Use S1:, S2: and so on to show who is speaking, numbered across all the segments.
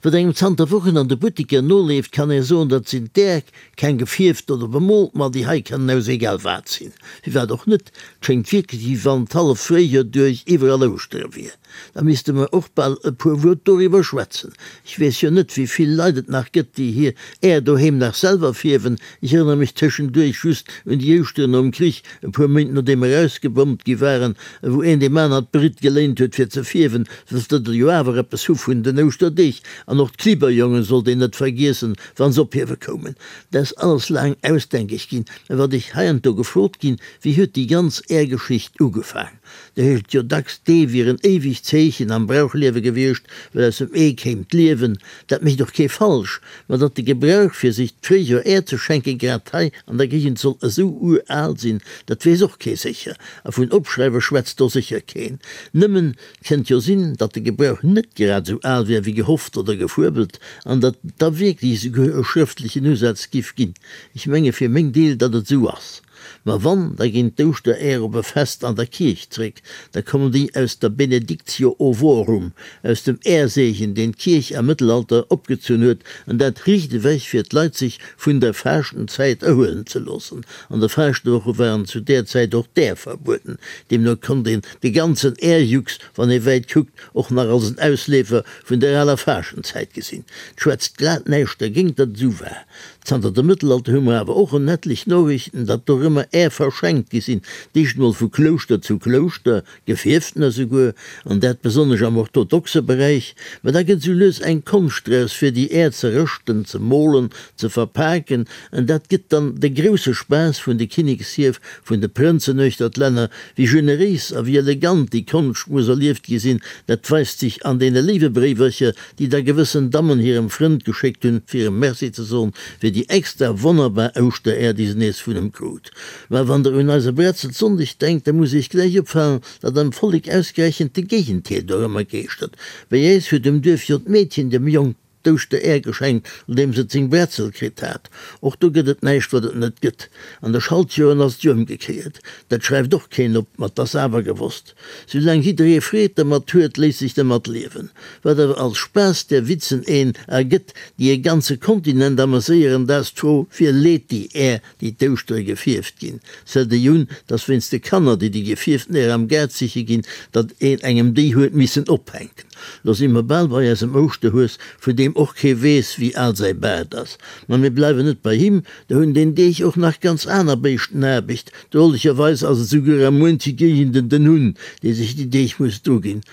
S1: Wat engem zanter Wochen an de Buttiker noleeft, kann ee soen, dat sinn d'Äerk, keng gefierft oder bemoolt, ma déi hei kënnen aus egal wat sinn. Firwat och net? Et schéngt wierklech, wéi wann d'hallef Fréijoer duerch iwwerall Ouschtere wier. Da misste mer och bal e puer Wuert doriwwer schwätzen. Ech weess jo net, wéi vill Leit et nach gëtt, déi hir Äer doheem nach selwer fierwen. Ech erënnere mech tëschenduerch just un déi Ouschteren nom Krich, e puer Méint nodeem mer erausgebommt gi waren, wou een deem aner d'Britt geléint huet fir ze fierwen, soss datt der jo awer eppes hu vun den Ouschterdeeg. An och d'Klibberjongen sollt een net vergiessen, wann se ophiewe koumen. Dat ass alles laang ausdenkeg ginn. Mä wat ech heiansdo gefrot ginn, Wéi huet déi ganz Äergeschicht ugefaang? Do heescht et jo dacks, d'Ee wier en éiwegt Zeechen am Brauchliewe gewiescht, well aus dem Ee kéim d'Liewen. Dat mécht och kee falsch. Ma datt de Gebrauch fir sech d'Fréijoer Äer ze schenken grad hei an der Géigend soll esou ural sinn, dat weess och kee sécher. A vun Opschreiwe schwätzt do sécher keen. Nëmmen, 't kënnt jo sinn, datt de Gebrauch net grad esou al wär wéi gehofft oder gefuebelt an datt et da wierklech esouguer e schrëftlechen Usaz giff ginn. Ech menge fir meng Deel, datt et esou ass. Ma wann, da ginn d'Ouschteräer op e Fest an der Kierch zréck, da kommen déi aus der Benedictio ovorum, aus dem Äerseegen, deen d'Kierch am Mëttelalter opgezunn huet, an dat riicht ewech, fir d'Leit sech vun der Faaschtenzäit erhuelen ze loossen. An de Faaschtwoche waren zu där Zäit och d'Äer verbueden, deemno konnt een de ganzen Äerjux, wann ee wäit kuckt, och nach als en Ausleefer vun der aler Faaschtenzäit gesinn. 't schwätzt glat näischt dergéint, datt et esou war. Zanter dem Mëttelalter hu mer awer och en etlech Noriichten, datt dorëmmer Är verschenkt gi sinn, d'éischt mol vu Klouschter zu Klouschter, gefierftener souguer, an dat besonnesch am orthodoxe Beräich. Mä da gëtt esou lues eng Konscht draus, fir déi Är ze rëschten, ze molen, ze verpaken, an dat gëtt dann de grousse Spaass vun de Kinnekshierf, vun de Prënzen uechter d'Länner. Wéi generéis a wéi elegant déi Konscht muss erlieft gi sinn, dat weist sech an deene léiwe Bréiwercher, déi da gewëssen Dammen hirem Frënd geschéckt hunn, fir em Merci ze soen, fir déi extra wonnerbar Ouschteräer, déi se nees vun em krut. Mä wann der un eise Bretzelsonndeg denkt, da muss iech gläich opfalen, datt am Vollek ausgerechent de Géigenteer dorëmmer geeschtert. Bei äis huet um Duerf jo d'Meedchen dem Jong d'Ouschteräer geschenkt, nodeems et seng Bretzel kritt hat. Och do gëtt et näischt, wat et net gëtt. An de Schaltjoren ass et jo ëmgekéiert. Dat schreift och keen op, ma 't ass awer gewosst. Soulaang jidderee Freed dermat huet, léisst sech dermat liewen. Wat awer als Spaass där Witzen een ergëtt, déi e ganze Kontinent ameséieren, dat ass d'Fro, Wie leet déi Är déi d'Ouschtere gefierft ginn. Sëlt déi un, dass wéinst de Kanner, déi déi gefierften Äer am Gaart siche ginn, datt een engem déi huet missen ophänken. Lo si mer bal bei eisem Ouschterhues, vun deem och kee weess, wéi al säi Baart ass. Ma mir bleiwen net bei him, do hunn deen Deeg och nach ganz aner Béischten Aarbecht. Drolecherweis ass et souguer a muenche Géigenden den Hunn, dee sech déi Deeg muss druginn.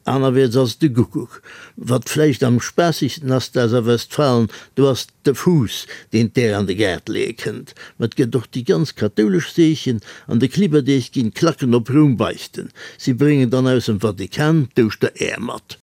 S1: Anerwäerts ass et de Guckuck. Wat vläicht am spaassigsten ass, dat ass a Westfalen, do ass de Fuuss, deen d'Äer an de Gaart leeë kënnt. Ma et gëtt och déi ganz kathoulesch Seechen, an de Klibberdeeg ginn d'Klacken op Roum beichten. Si bréngen dann aus dem Vatikan d'Ouschteräer mat.